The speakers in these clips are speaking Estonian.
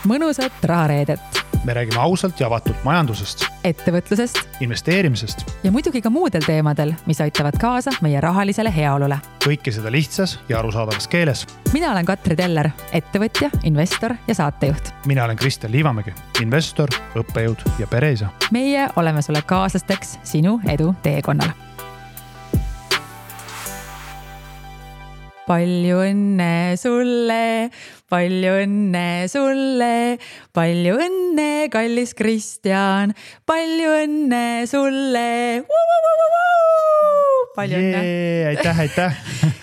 mõnusat rahareedet. Me räägime ausalt ja avatult majandusest, ettevõtlusest investeerimisest ja muidugi ka muudel teemadel, mis aitavad kaasa meie rahalisele heaolule. Kõike seda lihtsas ja arusaadavas keeles. Mina olen Katri Teller, ettevõtja, investor ja saatejuht. Mina olen Kristjan Liivamägi, investor, õppejõud ja pereisa. Meie oleme sulle kaaslasteks sinu edu teekonnal. Palju õnne sulle, palju õnne, kallis Kristjan, palju õnne sulle. Palju õnne. Aitäh.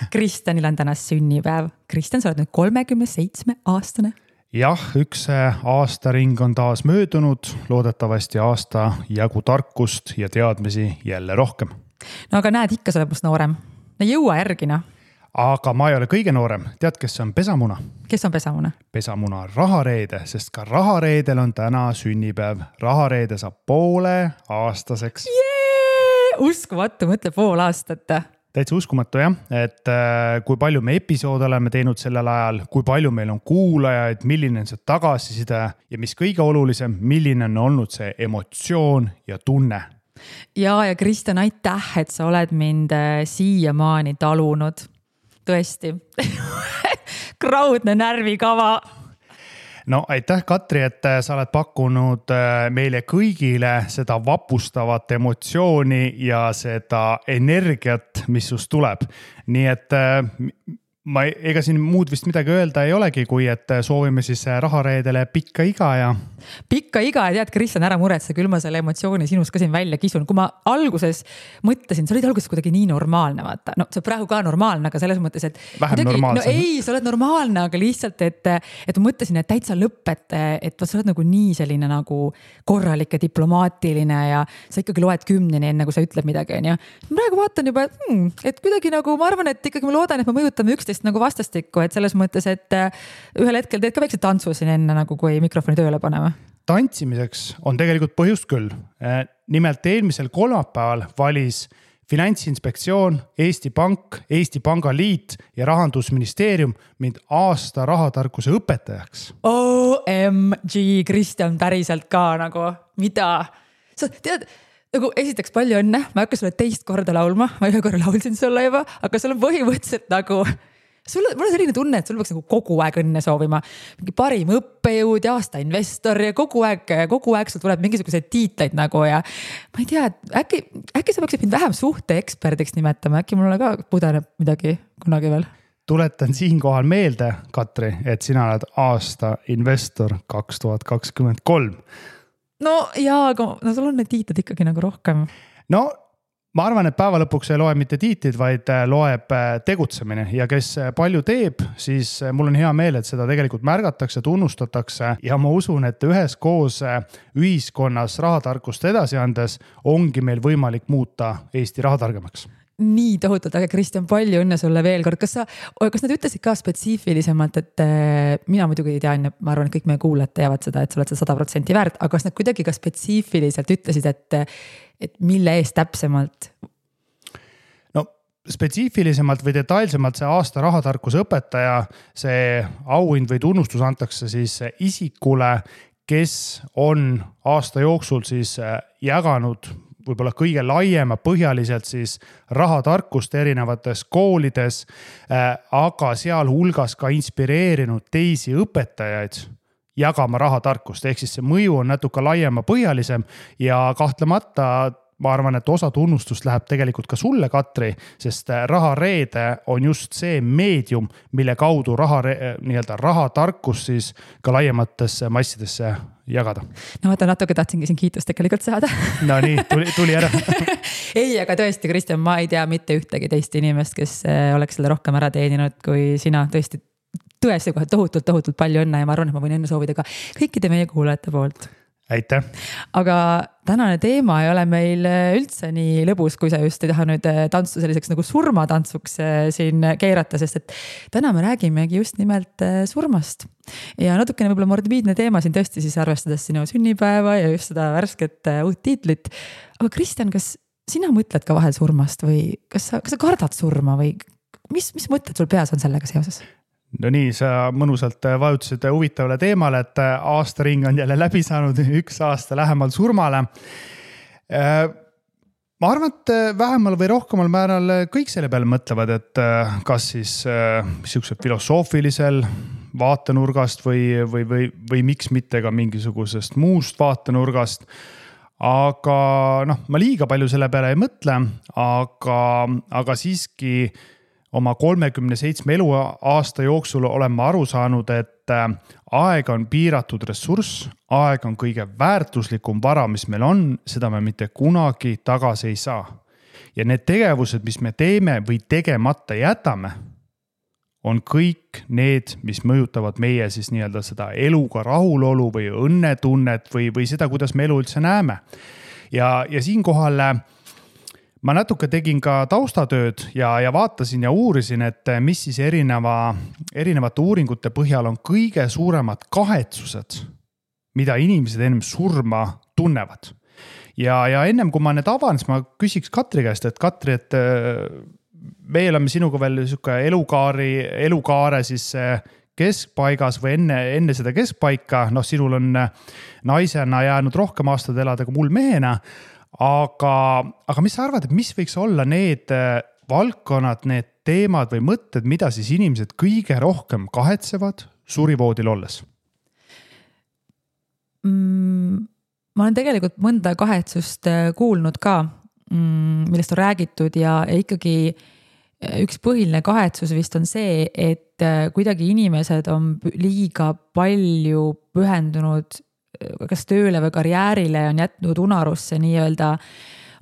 Kristjanil on täna sünnipäev. Kristjan, sa oled nüüd 37-aastane. Jah, üks aastaring on taas möödunud, loodetavasti aasta jagu tarkust ja teadmisi jälle rohkem. No aga näed, ikka sa oled must noorem. No jõua järgina. Aga ma ei ole kõige noorem. Tead, kes on pesamuna? Kes on pesamuna? Pesamuna on Rahareede, sest ka Rahareedel on täna sünnipäev. Rahareede saab poole aastaseks. Uskumatu, mõtle pool aastat. Täitsa uskumatu, jah. Et kui palju me episoode oleme teinud sellel ajal, kui palju meil on kuulajaid, milline on see tagasiside ja mis kõige olulisem, milline on olnud see emotsioon ja tunne. Ja Kristjan, aitäh, et sa oled mind siiamaani talunud. Tõesti. Kraudne närvikava. No aitäh, Katri, et sa oled pakkunud meile kõigile seda vapustavat emotsiooni ja seda energiat, mis sust tuleb. Nii et ega siin muud vist midagi öelda ei olegi, kui et soovime siis Rahareedele pikka iga ja... Pikka iga ja tead, Kristjan, ära muretse, küll ma selle emotsiooni sinust ka siin välja kisun. Kui ma alguses mõtlesin, sa olid alguses kuidagi nii normaalne, vaata. No see on praegu ka normaalne, aga selles mõttes, et... Vähem normaalsem. No ei, sa oled normaalne, aga lihtsalt, et ma mõtlesin, et täitsa lõpp, et sa oled nagu nii selline nagu korralik ja diplomaatiline ja sa ikkagi loed 10 enne, kui sa ütled midagi. Ja praegu vaatan juba, et kuidagi nagu, ma arvan, et ikkagi ma loodan, et me mõjutame üksteist nagu vastastikku, et selles mõttes, et ühel hetkel teed ka väikse tantsu siin enne, nagu kui mikrofoni tööle paneme. Tantsimiseks on tegelikult põhjust küll. Nimelt eelmisel kolmapäeval valis Finantsinspektsioon, Eesti Pank, Eesti Pangaliit ja Rahandusministeerium mind aasta rahatarkuse õpetajaks. OMG, Kristjan, päriselt ka nagu, mida? Sa tead, nagu esiteks palju õnne, ma hakka sulle teist korda laulma, ma ühe korra laulsin sulle juba, aga sul on põhimõtteliselt nagu... Mul on selline tunne, et sul võiks nagu kogu aeg õnne soovima. Mingi parim õppejõud ja aasta investor ja kogu aeg sul tuleb mingisugused tiitleid nagu ja ma ei tea, äkki sa peaksid mind vähem suhteeksperdiks nimetama, äkki mulle ka pudeneb midagi kunagi veel. Tuletan siinkohal meelde, Katri, et sina oled aasta investor 2023. No jaa, aga sul on need tiitlid ikkagi nagu rohkem. No, ma arvan, et päeva lõpuks ei loe mitte tiitlid, vaid loeb tegutsemine ja kes palju teeb, siis mul on hea meel, et seda tegelikult märgatakse, tunnustatakse ja ma usun, et üheskoos ühiskonnas rahatarkust edasi andes ongi meil võimalik muuta Eesti rahatargemaks. Nii tohutult, aga Kristjan, palju õnne sulle veel kord. Kas nad ütlesid ka spetsiifilisemalt, et mina muidugi ei tea, ma arvan, et kõik meie kuulajad teavad seda, et sa oled 100% väärt, aga kas nad kuidagi ka spetsiifiliselt ütlesid, et mille eest täpsemalt? No spetsiifilisemalt või detailsemalt see aasta rahatarkuse õpetaja, see auhind või tunnustus antakse siis isikule, kes on aasta jooksul siis jaganud võib-olla kõige laiema põhjaliselt siis rahatarkust erinevates koolides, aga seal hulgas ka inspireerinud teisi õpetajaid jagama rahatarkust. Ehk siis see mõju on natuke laiema põhjalisem ja kahtlemata ma arvan, et osa tunnustust läheb tegelikult ka sulle, Katri, sest Rahareede on just see meedium, mille kaudu rahatarkus siis ka laiematesse massidesse jagada. No vaata, natuke tahtsingi siin kiitust tegelikult saada. No nii, tuli ära. Ei, aga tõesti, Kristjan, ma ei tea mitte ühtegi teist inimest, kes oleks selle rohkem ära teeninud kui sina. Tõesti kohe tohutult palju õnne ja ma arvan, et ma võin õnne soovida ka kõikide meie kuulajate poolt. Aitäh. Aga tänane teema ei ole meil üldse nii lõbus, kui sa just ei taha nüüd tantsu selliseks nagu surmatantsuks siin keerata, sest et täna me räägimegi just nimelt surmast. Ja natukene võib-olla morbiidne teema siin tõesti siis arvestades sinu sünnipäeva ja just seda värsket uut tiitlit. Aga Kristjan, kas sina mõtled ka vahel surmast või kas sa kardad surma või mis mõtted sul peas on sellega seoses? No nii, sa mõnusalt vajutasid huvitavale teemale, et aastaring on jälle läbi saanud, 1 aasta lähemal surmale. Ma arvan, et vähemal või rohkemal määral kõik selle peale mõtlevad, et kas siis niisugusel filosoofilisel vaatenurgast või miks mitte ka mingisugusest muust vaatenurgast. Aga ma liiga palju selle peale ei mõtle, aga siiski oma 37 eluaasta jooksul olen ma aru saanud, et aeg on piiratud ressurss, aeg on kõige väärtuslikum vara, mis meil on, seda me mitte kunagi tagasi ei saa. Ja need tegevused, mis me teeme või tegemata jätame, on kõik need, mis mõjutavad meie siis nii-öelda seda eluga rahulolu või õnnetunnet või seda, kuidas me elu üldse näeme. Ja siinkohal ma natuke tegin ka taustatööd ja vaatasin ja uurisin, et mis siis erinevate uuringute põhjal on kõige suuremad kahetsused, mida inimesed ennem surma tunnevad. Ja ennem kui ma need avan, siis ma küsiks Katri käest, et Katri, et me oleme sinuga veel elukaare siis keskpaigas või enne seda keskpaika. Sinul on naisena jäänud rohkem aastad elada kui mul mehena. Aga mis sa arvad, et mis võiks olla need valdkonnad, need teemad või mõtted, mida siis inimesed kõige rohkem kahetsevad surivoodil olles? Ma olen tegelikult mõnda kahetsust kuulnud ka, millest on räägitud ja ikkagi üks põhiline kahetsus vist on see, et kuidagi inimesed on liiga palju pühendunud kas tööle või karjäärile, on jätnud unarusse nii-öelda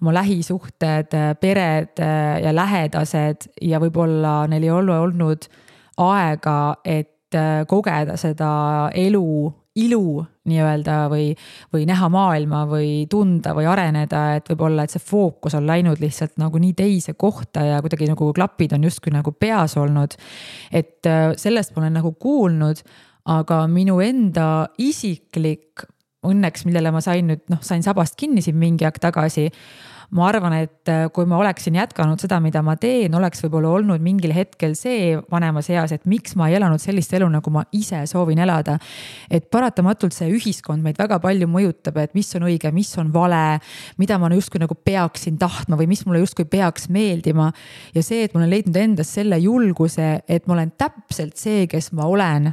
oma lähisuhted, pered ja lähedased ja võib-olla neil ei ole olnud aega, et kogeda seda ilu nii-öelda või näha maailma või tunda või areneda, et võib-olla, et see fookus on läinud lihtsalt nagu nii teise kohta ja kuidagi nagu klapid on justkui nagu peas olnud. Et sellest ma olen nagu kuulnud, aga minu enda isiklik õnneks, millele ma sain sabast kinni siin mingi aeg tagasi. Ma arvan, et kui ma oleksin jätkanud seda, mida ma teen, oleks võib-olla olnud mingil hetkel see vanemas eas, et miks ma ei elanud sellist elu, nagu ma ise soovin elada. Et paratamatult see ühiskond meid väga palju mõjutab, et mis on õige, mis on vale, mida ma justkui nagu peaksin tahtma või mis mulle justkui peaks meeldima. Ja see, et ma olen leidnud endas selle julguse, et ma olen täpselt see, kes ma olen.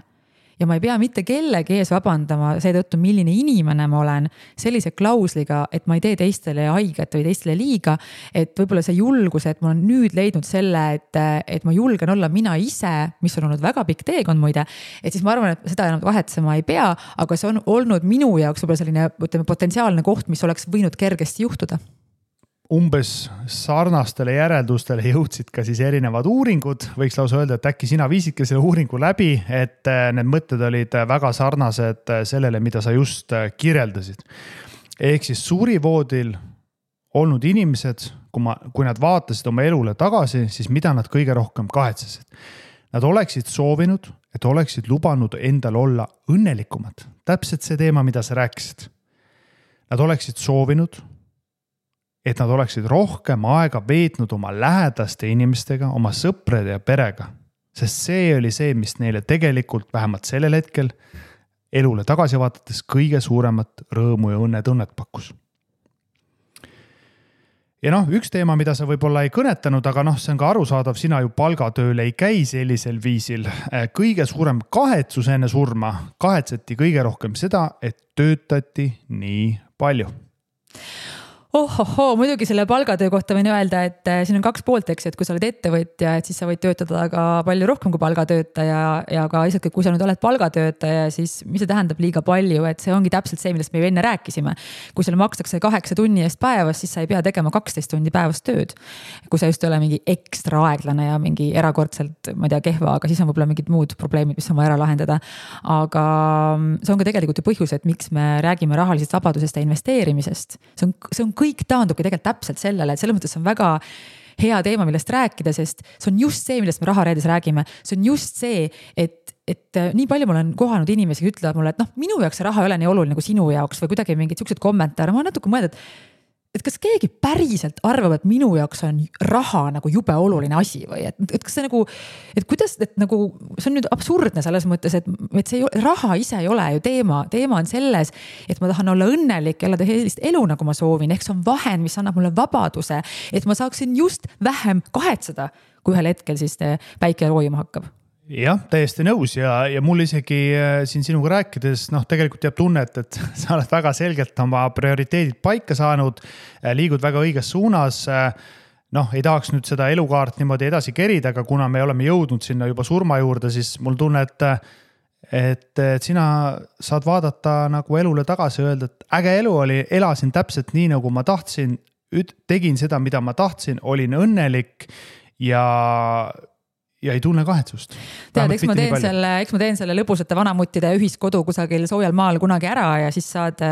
Ja ma ei pea mitte kellegi ees vabandama seetõttu, milline inimene ma olen sellise klausliga, et ma ei tee teistele haiget või teistele liiga, et võib-olla see julgus, et ma olen nüüd leidnud selle, et ma julgen olla mina ise, mis on olnud väga pikk teekond muide, et siis ma arvan, et seda enam kahetsema ei pea, aga see on olnud minu jaoks võib-olla selline potentsiaalne koht, mis oleks võinud kergesti juhtuda. Umbes sarnastele järeldustele jõudsid ka siis erinevad uuringud. Võiks lausa öelda, et äkki sina viisidki selle uuringu läbi, et need mõtted olid väga sarnased sellele, mida sa just kirjeldasid. Ehk siis surivoodil olnud inimesed, kui nad vaatasid oma elule tagasi, siis mida nad kõige rohkem kahetsesid? Nad oleksid soovinud, et oleksid lubanud endal olla õnnelikumad. Täpselt see teema, mida sa rääkisid. Nad oleksid soovinud, et nad oleksid rohkem aega veetnud oma lähedaste inimestega, oma sõprade ja perega. Sest see oli see, mis neile tegelikult vähemalt sellel hetkel elule tagasi vaadates kõige suuremat rõõmu ja õnnetunnet pakkus. Ja üks teema, mida sa võib-olla ei kõnetanud, aga see on ka arusaadav, sina ju palgatööl ei käi sellisel viisil. Kõige suurem kahetsus enne surma kahetseti kõige rohkem seda, et töötati nii palju. Muidugi selle palgatöö kohta võin öelda, et siin on 2 poolt, eks, et kui sa oled ettevõtja, et siis sa võid töötada ka palju rohkem kui palgatöötaja ja ka lihtsalt, kui sa nüüd oled palgatöötaja, siis mis see tähendab liiga palju, et see ongi täpselt see, millest me enne rääkisime. Kui sulle makstakse 8 tunni eest päevas, siis sa ei pea tegema 12 tundi päevast tööd. Kui sa just ei ole mingi ekstra aeglane ja mingi erakordselt, ma ei tea, kehva, aga siis on võib-olla mingid muud probleemid, mis on vaja ära lahendada. Aga see on ka tegelikult ju põhjus, et miks me räägime rahalisest vabadusest ja investeerimisest. See on kõik taandubki tegelikult täpselt sellele, et selles mõttes on väga hea teema, millest rääkida, sest see on just see, millest me rahareedes räägime. See on just see, et nii palju ma olen kohanud inimesi, ütlevad mulle, et minu jaoks see raha ei ole nii oluline kui sinu jaoks või kuidagi mingid siuksed kommentaare. Ma natuke mõelda, et kas keegi päriselt arvab, et minu jaoks on raha nagu jube oluline asi või et kas see nagu, et kuidas, et nagu see on nüüd absurdne selles mõttes, et see raha ise ei ole ju teema on selles, et ma tahan olla õnnelik ja elada sellist elu, nagu ma soovin, ehk see on vahend, mis annab mulle vabaduse, et ma saaksin just vähem kahetseda, kui ühel hetkel siis päike roojuma hakkab. Jah, täiesti nõus ja mul isegi siin sinuga rääkides, tegelikult jääb tunnet, et sa oled väga selgelt oma prioriteedid paika saanud, liigud väga õiges suunas. Ei tahaks nüüd seda elukaart niimoodi edasi kerida, aga kuna me oleme jõudnud sinna juba surma juurde, siis mul tunne, et sina saad vaadata nagu elule tagasi ja öelda, et äge elu oli, elasin täpselt nii, nagu ma tahtsin, tegin seda, mida ma tahtsin, olin õnnelik ja ei tunne kahetsust. Tead, eks ma teen selle lõbusate vanamuttide ühiskodu kusagil soojal maal kunagi ära ja siis saad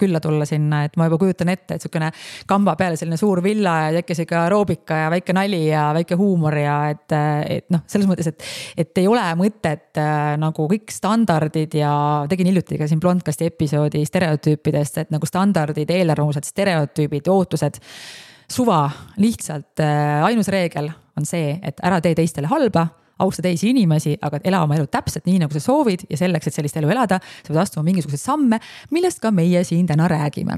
külla tulla sinna, et ma juba kujutan ette, et sükene kamba peale selline suur villa ja tekkis ikka aeroobika ja väike nali ja väike huumor ja et selles mõttes, et ei ole mõtet nagu kõik standardid ja tegin hiljuti ka siin Blondcasti episoodi stereotüüpidest, et nagu standardid, eelarvamused, stereotüübid, ootused, suva, lihtsalt ainus reegel on see, et ära tee teistele halba, austa teisi inimesi, aga ela oma elu täpselt nii, nagu sa soovid ja selleks, et sellist elu elada, sa pead astuma mingisuguseid samme, millest ka meie siin täna räägime.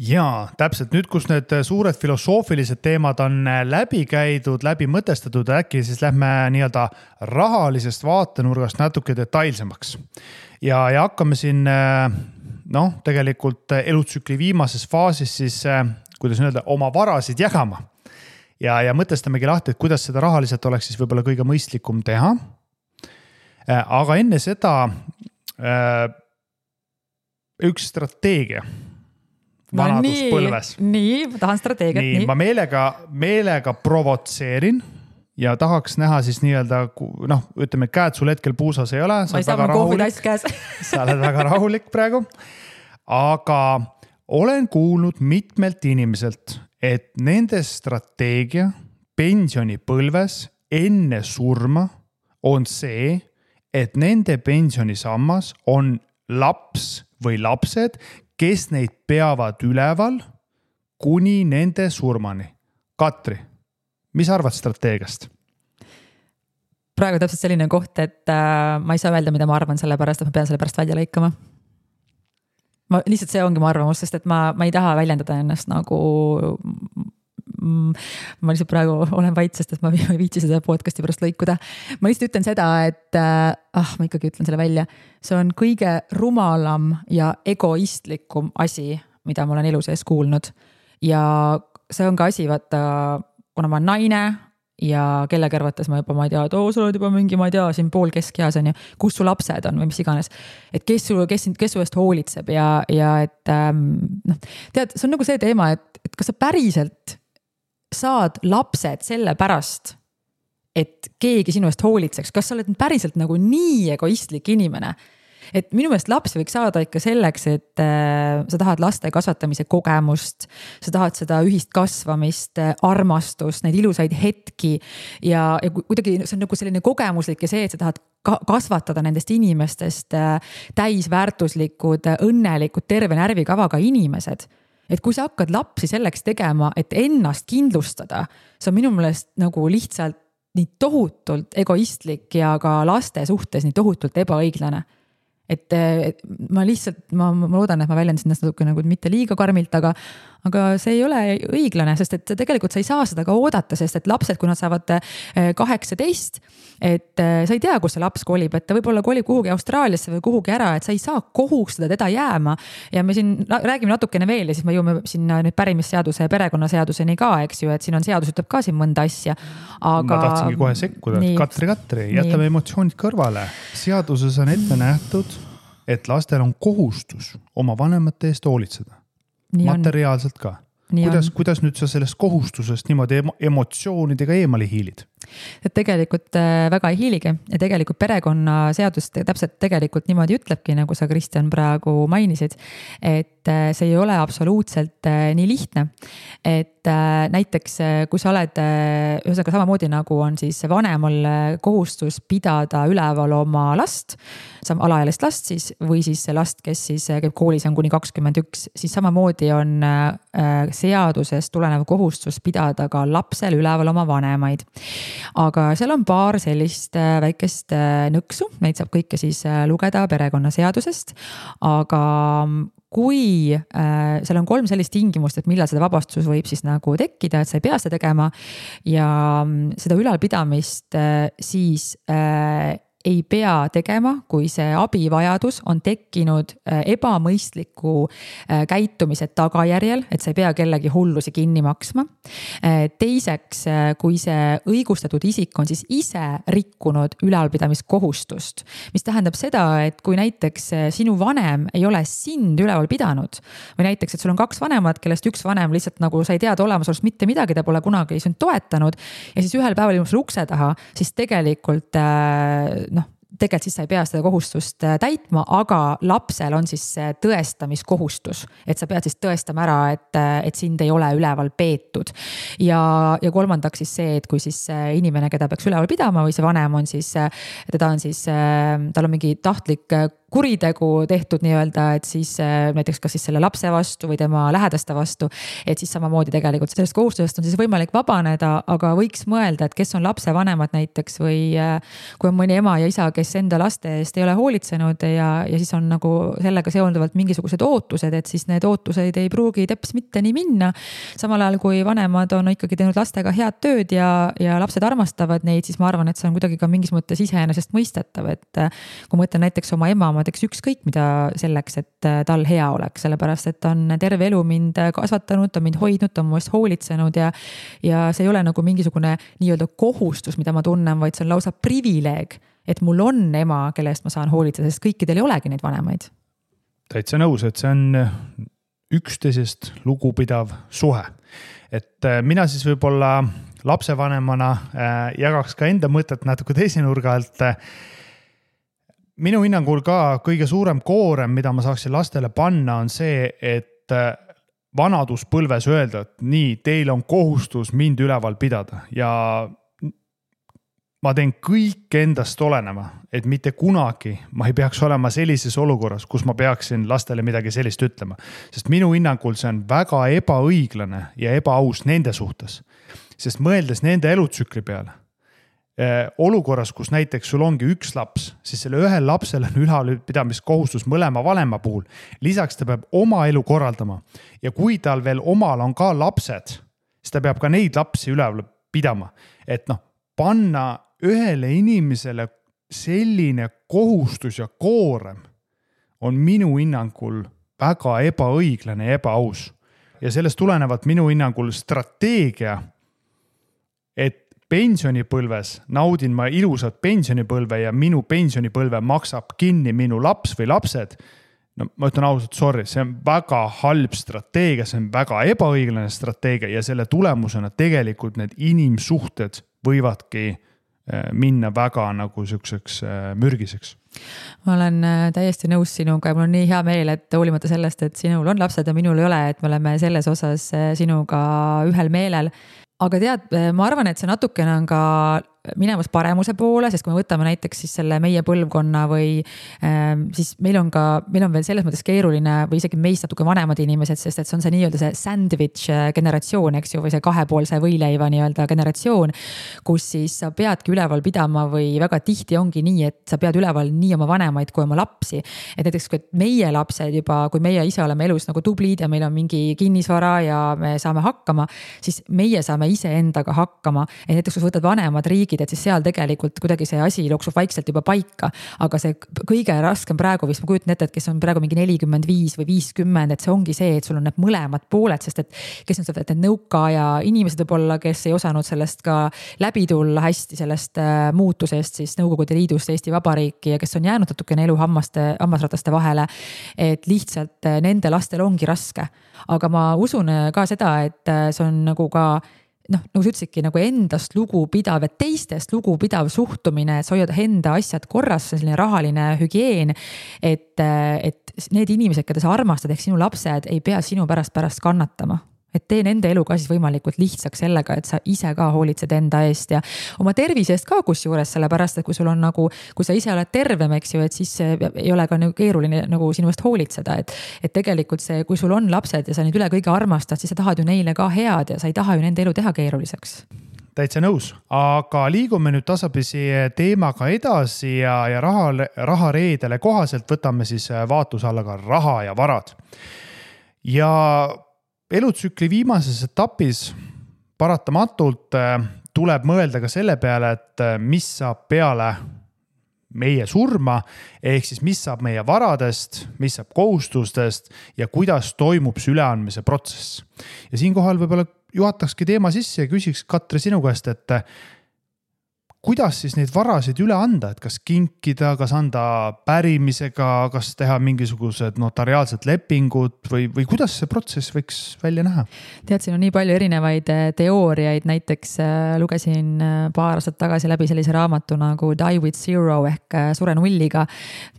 Jaa, täpselt nüüd, kus need suured filosoofilised teemad on läbi käidud, läbi mõtestatud, äkki siis lähme nii-öelda rahalisest vaatenurgast natuke detailsemaks. Ja hakkame siin tegelikult elutsükli viimases faasis siis, kuidas öelda, oma varasid jagama. Ja mõtestamegi lahti, et kuidas seda rahaliselt oleks siis võib-olla kõige mõistlikum teha. Aga enne seda üks strateegia vanaduspõlves. Nii, ma tahan strateegiat. Nii, ma meelega provotseerin ja tahaks näha siis nii-öelda, ütleme, käed sul hetkel puusas ei ole. Ma ei saa ma kohvitass käes. Sa oled väga rahulik praegu. Aga olen kuulnud mitmelt inimeselt, et nende strateegia pensionipõlves enne surma on see, et nende pensionisammas on laps või lapsed, kes neid peavad üleval kuni nende surmani. Katri, mis arvad strateegiast? Praegu täpselt selline koht, et ma ei saa öelda, mida ma arvan selle pärast, et ma pean selle pärast välja lõikama. Lihtsalt see ongi mu arvamus, sest et ma ei taha väljendada ennast nagu ma lihtsalt praegu olen vait, sest et ma ei viitsi seda podcasti pärast lõikuda. Ma lihtsalt ütlen seda, et ma ikkagi ütlen selle välja. See on kõige rumalam ja egoistlikum asi, mida ma olen elu sees kuulnud. Ja see on ka asi, vaata, kuna ma olen naine ja kelle kõrvates ma juba, ma ei tea, sa oled juba mingi, ma ei tea, siin pool keskeas on ju, kus su lapsed on või mis iganes. Et kes su eest hoolitseb ja et tead, see on nagu see teema, et kas sa päriselt saad lapsed selle pärast, et keegi sinu eest hoolitseks, kas sa oled päriselt nagu nii egoistlik inimene, et minu meelest lapsi võiks saada ikka selleks, et sa tahad laste kasvatamise kogemust, sa tahad seda ühist kasvamist, armastust, neid ilusaid hetki ja kuidagi see on nagu selline kogemuslik ja see, et sa tahad kasvatada nendest inimestest täisväärtuslikud, õnnelikud, terve närvikavaga inimesed. Et kui sa hakkad lapsi selleks tegema, et ennast kindlustada, see on minu meelest nagu lihtsalt nii tohutult egoistlik ja ka laste suhtes nii tohutult ebaõiglane. Et ma lihtsalt, ma loodan, et ma väljendasin ennast natuke nagu mitte liiga karmilt, aga see ei ole õiglane, sest et tegelikult sa ei saa seda ka oodata, sest et lapsed, kui nad saavad 18, et sa ei tea, kus see laps kolib, et ta võib-olla kolib kuhugi Austraaliasse või kuhugi ära, et sa ei saa kohustada teda jääma. Ja me siin räägime natukene veel ja siis me jõuame sinna nüüd pärimisseaduse ja perekonnaseaduseni ka, eks ju, et siin on seadus ütleb ka siin mõnda asja. Aga... Ma tahtsingi kohe sekkuda, Katri, jätame emotsioonid kõrvale. Seaduses on ette nähtud, et lastel on kohustus oma vanemate eest hoolitseda. Materiaalselt ka. Kuidas nüüd sa sellest kohustusest niimoodi emotsioonidega eemale hiilid? et tegelikult väga ei hiiligi ja tegelikult perekonnaseadus täpselt tegelikult niimoodi ütlebki, nagu sa, Kristjan, praegu mainisid, et see ei ole absoluutselt nii lihtne. Et näiteks kui sa oled, ühesõnaga samamoodi nagu on siis vanemal kohustus pidada üleval oma last, alaealist last siis, või siis last, kes siis käib koolis on kuni 21, siis samamoodi on seadusest tulenev kohustus pidada ka lapsel üleval oma vanemaid. Aga seal on paar sellist väikest nõksu, neid saab kõike siis lugeda perekonnaseadusest, aga kui seal on 3 sellist tingimust, et millal seda vabastus võib siis nagu tekkida, et sa ei pea seda tegema ja seda ülalpidamist siis ei pea tegema, kui see abivajadus on tekkinud ebamõistliku käitumise tagajärjel, et sa ei pea kellegi hullusi kinni maksma. Teiseks, kui see õigustatud isik on siis ise rikkunud ülalpidamiskohustust, mis tähendab seda, et kui näiteks sinu vanem ei ole sind üleval pidanud või näiteks, et sul on 2 vanemat, kellest üks vanem lihtsalt nagu sa ei teada olemasolust mitte midagi, ta pole kunagi sind toetanud ja siis ühel päeval ilmus ukse taha, siis tegelikult tegelikult siis sa ei pea seda kohustust täitma, aga lapsel on siis tõestamiskohustus, et sa pead siis tõestama ära, et sind ei ole üleval peetud. Ja kolmandaks siis see, et kui siis inimene, keda peaks üleval pidama või see vanem on siis, tal on mingi tahtlik kuritegu tehtud nii-öelda, et siis näiteks kas siis selle lapse vastu või tema lähedaste vastu, et siis samamoodi tegelikult sellest kohustusest on siis võimalik vabaneda, aga võiks mõelda, et kes on lapse vanemad näiteks või kui on mõni ema ja isa, kes enda laste eest ei ole hoolitsenud ja siis on nagu sellega seonduvalt mingisugused ootused, et siis need ootused ei pruugi teps mitte nii minna. Samal ajal, kui vanemad on ikkagi teinud lastega head tööd ja lapsed armastavad neid, siis ma arvan, et see on kuidagi ka mingis mõttes iseenesest mõistetav, et kui ma mõtlen näiteks oma ema, ma teeks ükskõik mida selleks, et tal hea oleks, sellepärast, et ta on terve elu mind kasvatanud, ta on mind hoidnud, ta on mu eest hoolitsenud ja see ei ole nagu mingisugune nii-öelda kohustus, mida ma tunnen, vaid see on lausa privileeg, et mul on ema, kelle eest ma saan hoolitseda, sest kõikidel ei olegi neid vanemaid. Täitsa nõus, et see on üksteisest lugupidav suhe. Et mina siis võib-olla lapsevanemana jagaks ka enda mõtet natuke teise nurga alt. Minu hinnangul ka kõige suurem koorem, mida ma saaksin lastele panna, on see, et vanaduspõlves öelda, et nii, teil on kohustus mind üleval pidada ja ma teen kõik endast olenema, et mitte kunagi ma ei peaks olema sellises olukorras, kus ma peaksin lastele midagi sellist ütlema. Sest minu hinnangul see on väga ebaõiglane ja ebaaus nende suhtes. Sest mõeldes nende elutsükli peale, olukorras, kus näiteks sul ongi üks laps, siis selle ühel lapsel on ülalpidamiskohustus mõlema vanema puhul. Lisaks ta peab oma elu korraldama ja kui tal veel omal on ka lapsed, siis ta peab ka neid lapsi üleval pidama. Et panna ühele inimesele selline kohustus ja koorem on minu hinnangul väga ebaõiglane ja ebaaus. Ja sellest tulenevalt minu hinnangul strateegia, et pensionipõlves naudin ma ilusat pensionipõlve ja minu pensionipõlve maksab kinni minu laps või lapsed. Ma ütlen ausalt, sorry, see on väga halb strateegia, see on väga ebaõiglane strateegia ja selle tulemusena tegelikult need inimsuhted võivadki minna väga nagu selliseks mürgiseks. Ma olen täiesti nõus sinuga ja mul on nii hea meel, et hoolimata sellest, et sinul on lapsed ja minul ei ole, et me oleme selles osas sinuga ühel meelel. Aga tead, ma arvan, et see natukene on ka minemas paremuse poole, sest kui me võtame näiteks siis selle meie põlvkonna või siis meil on veel selles mõttes keeruline või isegi meist natuke vanemad inimesed, sest et see on see nii-öelda see sandwich generatsioon, eks ju, või see kahepoolse võileiva nii-öelda generatsioon, kus siis sa peadki üleval pidama või väga tihti ongi nii, et sa pead üleval nii oma vanemaid kui oma lapsi. Et näiteks, kui meie lapsed juba, kui meie ise oleme elus nagu tublid ja meil on mingi kinnisvara ja me saame hakkama, siis meie saame ise endaga hakkama. Et näiteks, kui võtad vanemad riigid, et siis seal tegelikult kuidagi see asi jooksub vaikselt juba paika, aga see kõige raskem praegu, vist ma kujutan ette, et kes on praegu mingi 45 või 50, et see ongi see, et sul on need mõlemad pooled, sest et kes on seda, et need nõukaaja inimesed võib-olla, kes ei osanud sellest ka läbi tulla hästi sellest muutusest siis Nõukogude Liidust Eesti Vabariiki ja kes on jäänud natukene elu hammasrataste vahele, et lihtsalt nende lastel ongi raske. Aga ma usun ka seda, et see on nagu ka noh, nagu sa ütlesidki, nagu endast lugupidav ja teistest lugupidav suhtumine, et sa hoiad enda asjad korras, selline rahaline hügieen, et need inimesed, keda sa armastad, ehk sinu lapsed ei pea sinu pärast kannatama. Et tee nende elu ka siis võimalikult lihtsaks sellega, et sa ise ka hoolitsed enda eest ja oma tervise eest ka kusjuures, sellepärast, et kui sul on nagu, kui sa ise oled tervem, eks ju, et siis ei ole ka nagu keeruline nagu sinu eest hoolitseda, et tegelikult see, kui sul on lapsed ja sa neid üle kõige armastad, siis sa tahad ju neile ka head ja sa ei taha ju nende elu teha keeruliseks. Täitsa nõus, aga liigume nüüd tasapisi teemaga edasi ja rahareedele kohaselt võtame siis vaatluse alla ka raha ja varad. Ja elutsükli viimases etapis paratamatult tuleb mõelda ka selle peale, et mis saab peale meie surma, ehk siis mis saab meie varadest, mis saab kohustustest ja kuidas toimub see üleandmise protsess. Ja siinkohal võib-olla juhatakski teema sisse ja küsiks Katri sinu käest, et kuidas siis neid varasid üle anda, et kas kinkida, kas anda pärimisega, kas teha mingisugused notariaalsed lepingud või kuidas see protsess võiks välja näha? Tead, siin on nii palju erinevaid teooriaid, näiteks lugesin paar aastat tagasi läbi sellise raamatu nagu Die with Zero ehk Sure nulliga,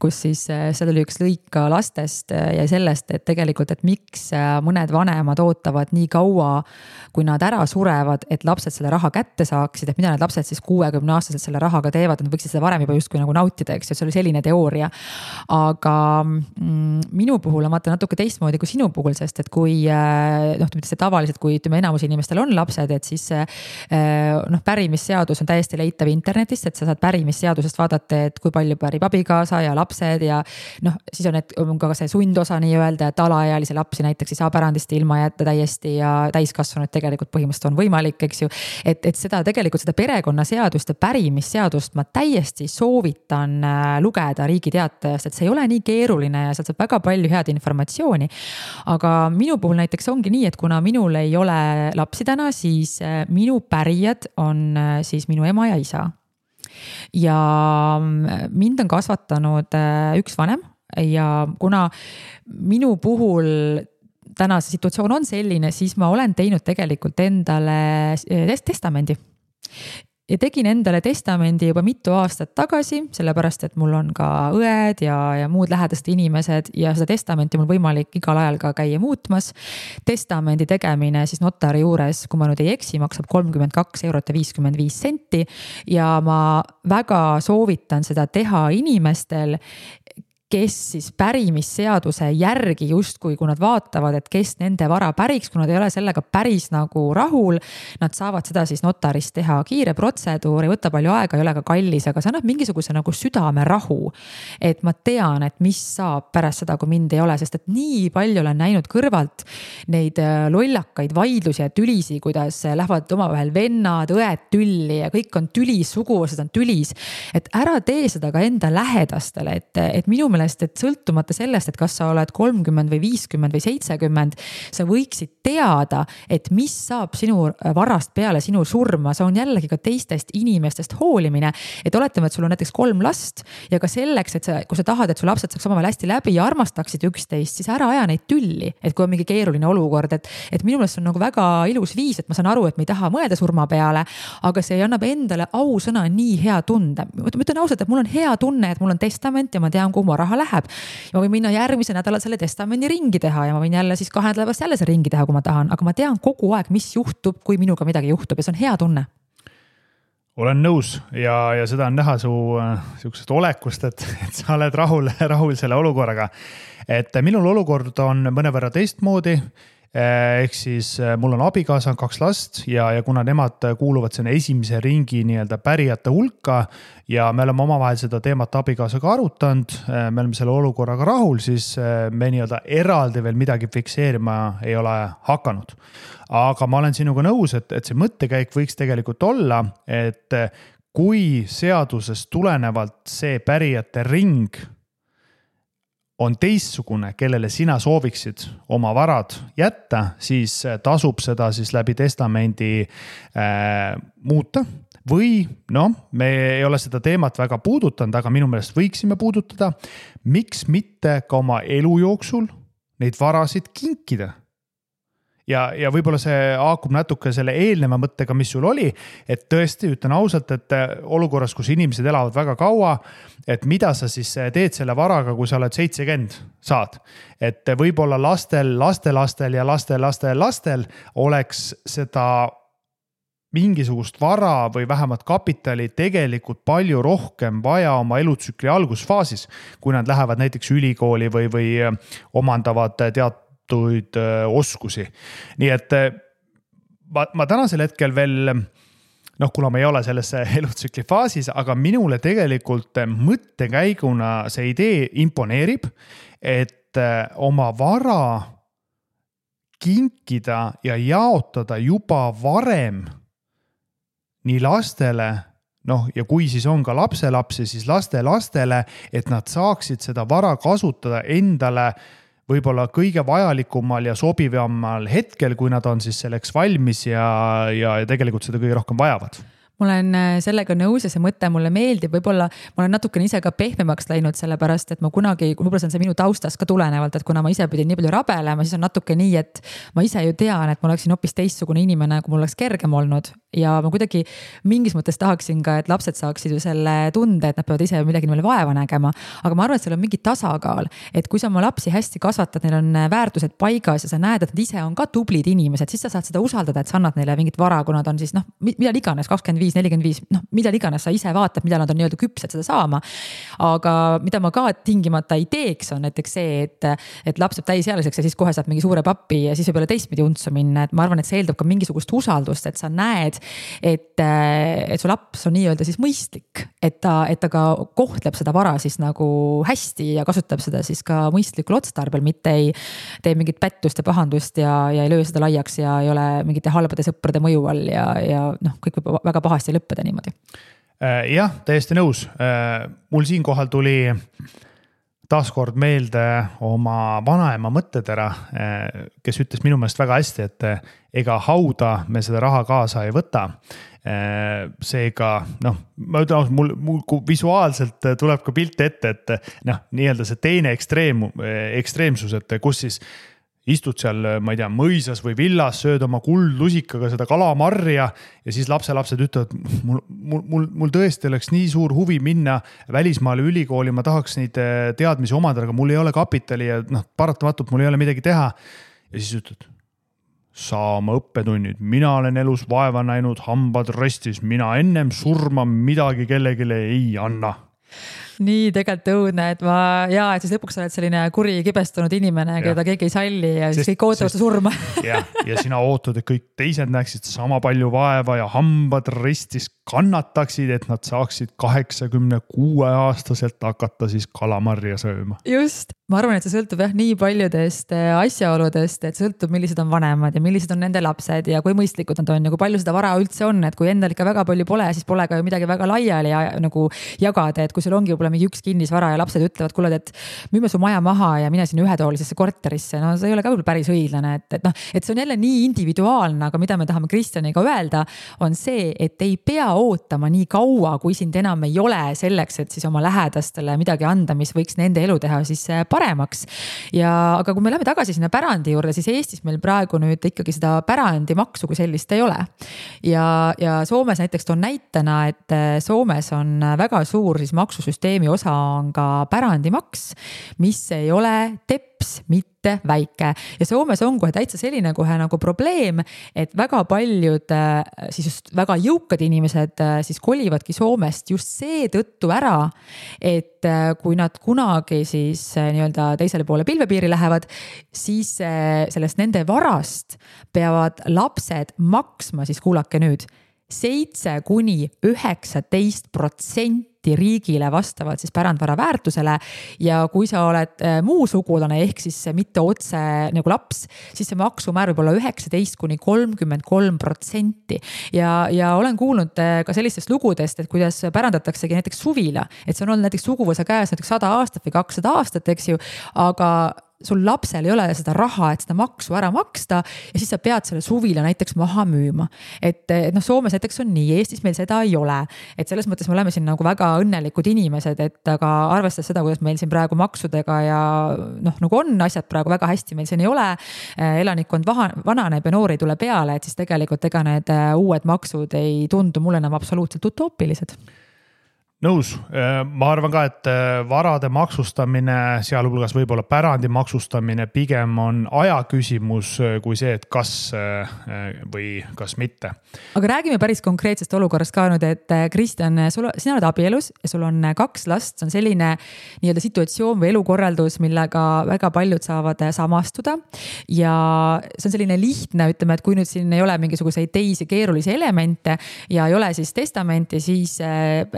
kus siis seal oli üks lõik lastest ja sellest, et tegelikult, et miks mõned vanemad ootavad nii kaua, kui nad ära surevad, et lapsed selle raha kätte saaksid, et mida need lapsed siis 60-aastaselt selle rahaga teevad, nad võiksid seda varem juba justkui nagu nautida, eks, et see oli selline teooria. Aga minu puhul on vaata natuke teistmoodi kui sinu puhul, sest et kui tavaliselt, kui enamus inimestel on lapsed, et siis pärimisseadus on täiesti leitav internetist, et sa saad pärimisseadusest vaadata, et kui palju pärib abikaasa ja lapsed ja siis on ka see sundosa nii öelda, et alaealise lapsi näiteks ei saa pärandist ilma jätta täiesti ja täiskasvanud tegelikult põhimõtteliselt on võimalik, eks ju, et seda tegelikult seda perekonnaseadust ja pärimisseadust ma täiesti soovitan lugeda Riigi Teatajast, et see ei ole nii keeruline ja sealt saab väga palju head informatsiooni. Aga minu puhul näiteks ongi nii, et kuna minul ei ole lapsi täna, siis minu pärijad on siis minu ema ja isa. Ja mind on kasvatanud üks vanem ja kuna minu puhul täna see situatsioon on selline, siis ma olen teinud tegelikult endale testamendi. Ja tegin endale testamendi juba mitu aastat tagasi, sellepärast, et mul on ka õed ja muud lähedased inimesed ja seda testamenti mul võimalik igal ajal ka käia muutmas. Testamendi tegemine siis notari juures, kui ma nüüd ei eksi, maksab 32,55 € ja ma väga soovitan seda teha inimestel, kes siis pärimisseaduse järgi justkui, kui nad vaatavad, et kes nende vara päriks, kui nad ei ole sellega päris nagu rahul, nad saavad seda siis notarist teha kiire protseduur, ei võta palju aega, ei ole ka kallis, aga see annab mingisuguse nagu südame rahu. Et ma tean, et mis saab pärast seda, kui mind ei ole, sest et nii palju olen näinud kõrvalt neid lollakaid vaidlusi ja tülisi, kuidas lähevad omavahel vennad, õed tülli ja kõik on tülis, suguvõsad on tülis. Et ära tee seda ka enda lähedastele, et minu et sõltumata sellest, et kas sa oled 30 või 50 või 70, sa võiksid teada, et mis saab sinu varast peale sinu surma, see on jällegi ka teistest inimestest hoolimine, et oletame, et sul on näiteks 3 last ja ka selleks, et kui sa tahad, et su lapsed saaks omavahel hästi läbi ja armastaksid üksteist, siis ära aja neid tülli, et kui on mingi keeruline olukord, et minu meelest on nagu väga ilus viis, et ma saan aru, et me ei taha mõelda surma peale, aga see annab endale ausõna nii hea tunde. Ma ütlen ausalt, et mul on hea tunne, et mul on testament ja ma tean, kuhu ma raha läheb. Ja ma võin minna järgmise nädala selle testamendi ringi teha ja ma võin jälle siis 2 nädalast jälle see ringi teha, kui ma tahan, aga ma tean kogu aeg, mis juhtub, kui minuga midagi juhtub ja see on hea tunne. Olen nõus ja seda on näha su siuksest olekust, et sa oled rahul selle olukorraga. Et minul olukord on mõnevõrra teistmoodi. Ehk siis mul on abikaasa, 2 last ja kuna nemad kuuluvad sinna esimese ringi nii-öelda pärijate hulka ja me oleme omavahel seda teemat abikaasaga arutanud, me oleme selle olukorraga rahul, siis me nii-öelda eraldi veel midagi fikseerima ei ole hakanud. Aga ma olen sinuga nõus, et see mõttekäik võiks tegelikult olla, et kui seadusest tulenevalt see pärijate ring on teistsugune, kellele sina sooviksid oma varad jätta, siis tasub seda siis läbi testamendi muuta. Või me ei ole seda teemat väga puudutanud, aga minu meelest võiksime puudutada. Miks mitte ka oma elu jooksul neid varasid kinkida? ja võib-olla see haakub natuke selle eelneva mõttega, mis sul oli, et tõesti ütlen ausalt, et olukorras, kus inimesed elavad väga kaua, et mida sa siis teed selle varaga, kui sa oled 70 saad. Et võib-olla lastel ja lastel oleks seda mingisugust vara või vähemalt kapitali tegelikult palju rohkem vaja oma elutsükli algusfaasis, kui nad lähevad näiteks ülikooli või omandavad oskusi. Nii et ma tänasel hetkel veel, kuna ma ei ole selles elutsükli faasis, aga minule tegelikult mõttekäiguna see idee imponeerib, et oma vara kinkida ja jaotada juba varem nii lastele, ja kui siis on ka lapselapsi, siis lastele, et nad saaksid seda vara kasutada endale võib-olla kõige vajalikumal ja sobivamal hetkel, kui nad on siis selleks valmis ja tegelikult seda kõige rohkem vajavad. Ma olen sellega nõus ja see mõte mulle meeldib, võib-olla ma olen natukene ise ka pehmemaks läinud sellepärast, et ma kunagi, võib-olla see on see minu taustast ka tulenevalt, et kuna ma ise pidin nii palju rabelema, siis on natuke nii, et ma ise ju tean, et ma oleksin hoopis teistsugune inimene, kui mul oleks kergem olnud ja ma kuidagi mingis mõttes tahaksin ka, et lapsed saaksid ju selle tunde, et nad peavad ise midagi neile vaeva nägema, aga ma arvan, et seal on mingi tasakaal, et kui sa oma lapsi hästi kasvatad, neil on väärtused paigas ja sa näed, et nad ise on ka tublid inimesed, siis sa saad seda usaldada, et sa annad neile mingit vara, kui nad on siis mida iganes 25-45, mida iganes sa ise vaatad, mida nad on nii-öelda küpsed seda saama. Aga mida ma ka tingimata ei teeks, on näiteks see, et laps saab täisealiseks ja siis kohe saab mingi suure pappi ja siis võib olla teistpidi untsu minna, et ma arvan, et see eeldab ka mingisugust usaldust, et sa näed, et su laps on nii-öelda siis mõistlik, et ta ka kohtleb seda vara siis nagu hästi ja kasutab seda siis ka mõistlikul otstarbel, mitte ei tee mingit pättust ja pahandust ja ei löö seda laiaks ja ei ole mingite halbade sõprade mõju all ja kõik võib väga pahasti lõppeda niimoodi. Jah, täiesti nõus. Mul siinkohal tuli taaskord meelde oma vanaema mõttetera, kes ütles minu meelest väga hästi, et ega hauda me seda raha kaasa ei võta. Seega, ma ütlen, mul visuaalselt tuleb ka pilt ette, et nii-öelda see teine ekstreemsus, et kus siis istud seal, ma ei tea, mõisas või villas, sööd oma kuldlusikaga seda kalamarja ja siis lapselapsed ütlevad, mul tõesti oleks nii suur huvi minna välismaale ülikooli, ma tahaks neid teadmisi omada, aga mul ei ole kapitali ja paratamatult mul ei ole midagi teha. Ja siis ütled, saa oma õppetunnid, mina olen elus vaeva näinud, hambad restis, mina ennem surma midagi kellegile ei anna. Nii tegelikult õudne, et et siis lõpuks oled selline kuri kibestunud inimene, keda keegi ei salli ja siis kõik ootavad surma. ja sina ootad, et kõik teised näeksid sama palju vaeva ja hambad ristis kannataksid, et nad saaksid 86-aastaselt hakata siis kalamarja sööma. Just, ma arvan, et see sõltub nii paljudest asjaoludest, et sõltub, millised on vanemad ja millised on nende lapsed ja kui mõistlikud nad on ja kui palju seda vara üldse on, et kui endal ikka väga palju pole, siis pole ka ju midagi väga laiali nagu jagada, et kui sul ongi võib-olla mingi üks kinnisvara ja lapsed ütlevad, kuule, et müüme su maja maha ja mine siin ühetoolisesse korterisse, see ei ole ka päris õiglane, et see on jälle nii individuaalne, aga mida me tahame Kristjaniga öelda, on see, et ei pea ootama nii kaua, kui sind enam ei ole selleks, et siis oma lähedastele midagi anda, mis võiks nende elu teha siis paremaks. Aga kui me läheme tagasi sinna pärandi juurde, siis Eestis meil praegu nüüd ikkagi seda pärandimaksu kui sellist ei ole. Ja Soomes näiteks toon näitena, et Soomes on väga suur siis maksusüsteemi osa on ka pärandimaks, mis ei ole teps, mitte väike. Ja Soomes on kohe täitsa selline kohe nagu probleem, et väga paljud siis just väga jõukad inimesed siis kolivadki Soomest just see tõttu ära, et kui nad kunagi siis nii-öelda teisele poole pilvepiiri lähevad, siis sellest nende varast peavad lapsed maksma siis kuulake nüüd 7-19% riigile vastavalt siis pärandvara väärtusele ja kui sa oled muu sugulane ehk siis mitte otse nagu laps, siis see maksumäär võib olla 19-33% ja olen kuulnud ka sellistest lugudest, et kuidas pärandataksegi näiteks suvila, et see on olnud näiteks suguvõsa käes näiteks 100 aastat või 200 aastat, eks ju, aga sul lapsel ei ole seda raha, et seda maksu ära maksta ja siis sa pead selle suvila näiteks maha müüma. Et noh, Soomes näiteks on nii, Eestis meil seda ei ole. Et selles mõttes me oleme siin nagu väga õnnelikud inimesed, et aga arvestades seda, kuidas meil siin praegu maksudega ja noh, nagu on asjad praegu väga hästi, meil siin ei ole, elanikkond vananeb ja noori tule peale, et siis tegelikult ega need uued maksud ei tundu mulle enam absoluutselt utoopilised. Nõus, ma arvan ka, et varade maksustamine, sealhulgas võib-olla pärandi maksustamine pigem on aja küsimus kui see, et kas või kas mitte. Aga räägime päris konkreetsest olukorrast ka nüüd, et Kristjan, sina oled abielus ja sul on 2 last, see on selline nii-öelda situatsioon või elukorraldus, millega väga paljud saavad samastuda ja see on selline lihtne, ütleme, et kui nüüd siin ei ole mingisuguseid teisi keerulisi elemente ja ei ole siis testamenti, siis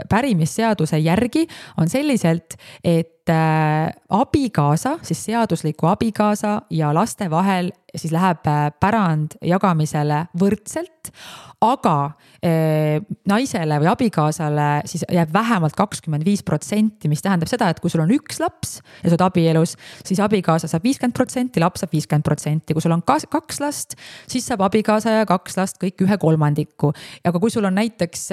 pärimisseaduse järgi on selliselt, et abikaasa, siis seadusliku abikaasa ja laste vahel siis läheb pärand jagamisele võrdselt, aga naisele või abikaasale siis jääb vähemalt 25%, mis tähendab seda, et kui sul on 1 laps ja sa oled abielus, siis abikaasa saab 50%, laps saab 50%. Kui sul on 2 last, siis saab abikaasa ja 2 last kõik 1/3. Aga kui sul on näiteks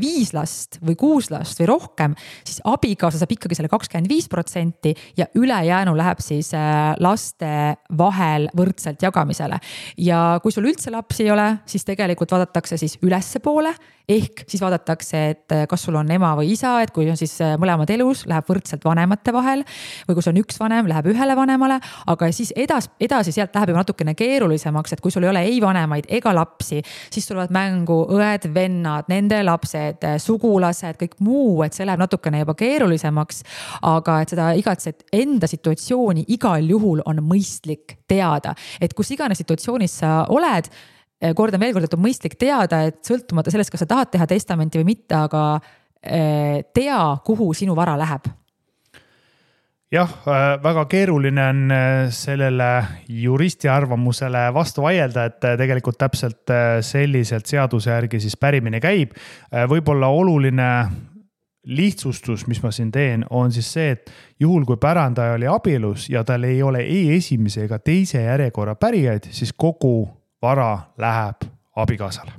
5 last või 6 last või rohkem, siis abikaasa saab ikkagi selle 25% ja ülejäänu läheb siis laste vahel võrdselt jagamisele. Ja kui sul üldse lapsi ei ole, siis tegelikult vaadatakse siis ülesse poole, ehk siis vaadatakse, et kas sul on ema või isa, et kui on siis mõlemad elus, läheb võrdselt vanemate vahel või kui sul on 1 vanem, läheb 1 vanemale, aga siis edasi sealt läheb juba natukene keerulisemaks, et kui sul ei ole ei vanemaid ega lapsi, siis tulevad mängu õed, vennad, nende lapsed, sugulased, kõik muu, et see läheb natukene juba keerulisemaks, aga et seda igatset enda situatsiooni igal juhul on mõistlik teada, et kus iganes situatsioonis sa oled, kordan veel kord, et on mõistlik teada, et sõltumata sellest, kas sa tahad teha testamenti või mitte, aga tea, kuhu sinu vara läheb. Jah, väga keeruline on sellele juristi arvamusele vastu vaielda, et tegelikult täpselt selliselt seaduse järgi siis pärimine käib. Võib-olla oluline lihtsustus, mis ma siin teen, on siis see, et juhul kui pärandaja oli abielus ja tal ei ole ei esimese ega teise järjekorra pärijaid, siis kogu vara läheb abikaasale.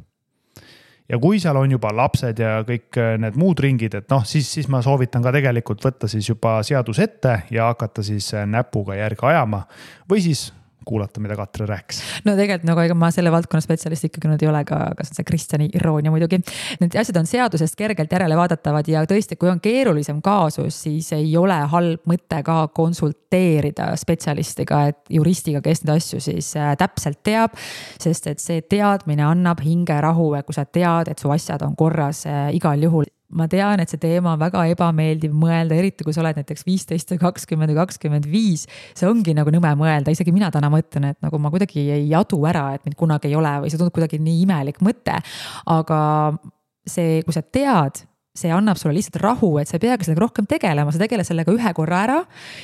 Ja kui seal on juba lapsed ja kõik need muud ringid, et noh, siis ma soovitan ka tegelikult võtta siis juba seadus ette ja hakata siis näpuga järge ajama või siis kuulata, mida Katre rääkis. No tegelikult nagu ega ma selle valdkonna spetsialist ikkagi nüüd ei ole, aga see on see Kristjani iroonia muidugi. Need asjad on seadusest kergelt järele vaadatavad ja tõesti, kui on keerulisem kaasus, siis ei ole halb mõte ka konsulteerida spetsialistiga, et juristiga, kes neid asju siis täpselt teab, sest et see teadmine annab hingerahu, kui sa tead, et su asjad on korras igal juhul. Ma tean, et see teema on väga ebameeldiv mõelda, eriti kui sa oled näiteks 15 või 20 või 25. See ongi nagu nõme mõelda, isegi mina täna mõtlen, et nagu ma kuidagi ei adu ära, et mind kunagi ei ole või see tundub kuidagi nii imelik mõte. Aga see, kui sa tead, see annab sulle lihtsalt rahu, et sa ei peagi sellega rohkem tegelema, sa tegele sellega 1 korra ära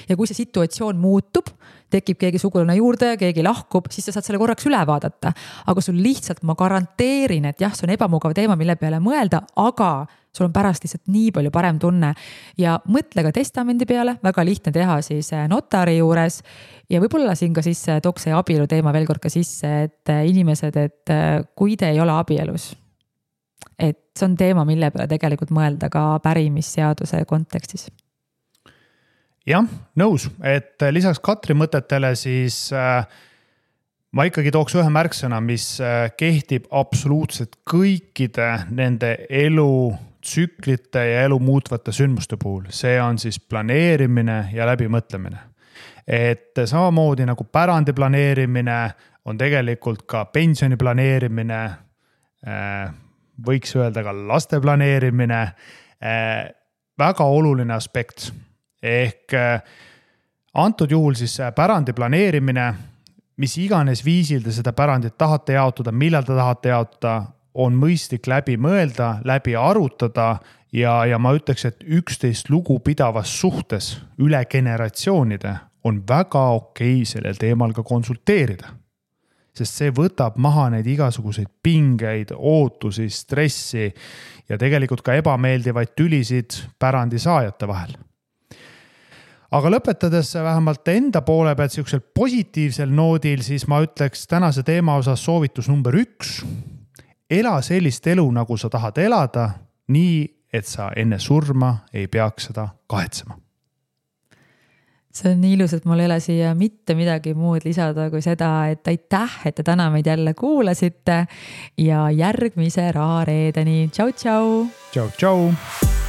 ja kui see situatsioon muutub, tekib keegi sugulane juurde, keegi lahkub, siis sa saad selle korraks üle vaadata. Aga sul lihtsalt ma garanteerin, et jah, see on ebamugav teema, mille peale mõelda, aga sul on pärast lihtsalt nii palju parem tunne ja mõtle ka testamendi peale, väga lihtne teha siis notari juures ja võib-olla siin ka siis tooks see abielu teema veel kord ka sisse, et inimesed, et kui te ei ole abielus, et see on teema, mille peale tegelikult mõelda ka pärimisseaduse kontekstis. Jah, nõus, et lisaks Katri mõtetele siis ma ikkagi tooks ühe märksõna, mis kehtib absoluutselt kõikide nende elutsüklite ja elu muutvate sündmuste puhul. See on siis planeerimine ja läbimõtlemine. Et samamoodi nagu pärandi planeerimine on tegelikult ka pensioni planeerimine, võiks öelda ka laste planeerimine, väga oluline aspekt. Ehk antud juhul siis pärandi planeerimine, mis iganes viisil te seda pärandit tahate jaotada, millal te tahate jaotada, on mõistlik läbi mõelda, läbi arutada ja ma ütleks, et 11 lugu pidavas suhtes üle generatsioonide on väga okei sellel teemal ka konsulteerida. Sest see võtab maha neid igasuguseid pingeid, ootusi, stressi ja tegelikult ka ebameeldivaid tülisid pärandi saajate vahel. aga lõpetades vähemalt enda poole pealt siuksel positiivsel noodil, siis ma ütleks tänase teema osas soovitus number 1. Ela sellist elu, nagu sa tahad elada, nii, et sa enne surma ei peaks seda kahetsema. See on nii ilus, et mul ei ole siia mitte midagi muud lisada kui seda, et aitäh, et te täna meid jälle kuulasite ja järgmise rahareedeni. Tšau, tšau! Tšau, tšau!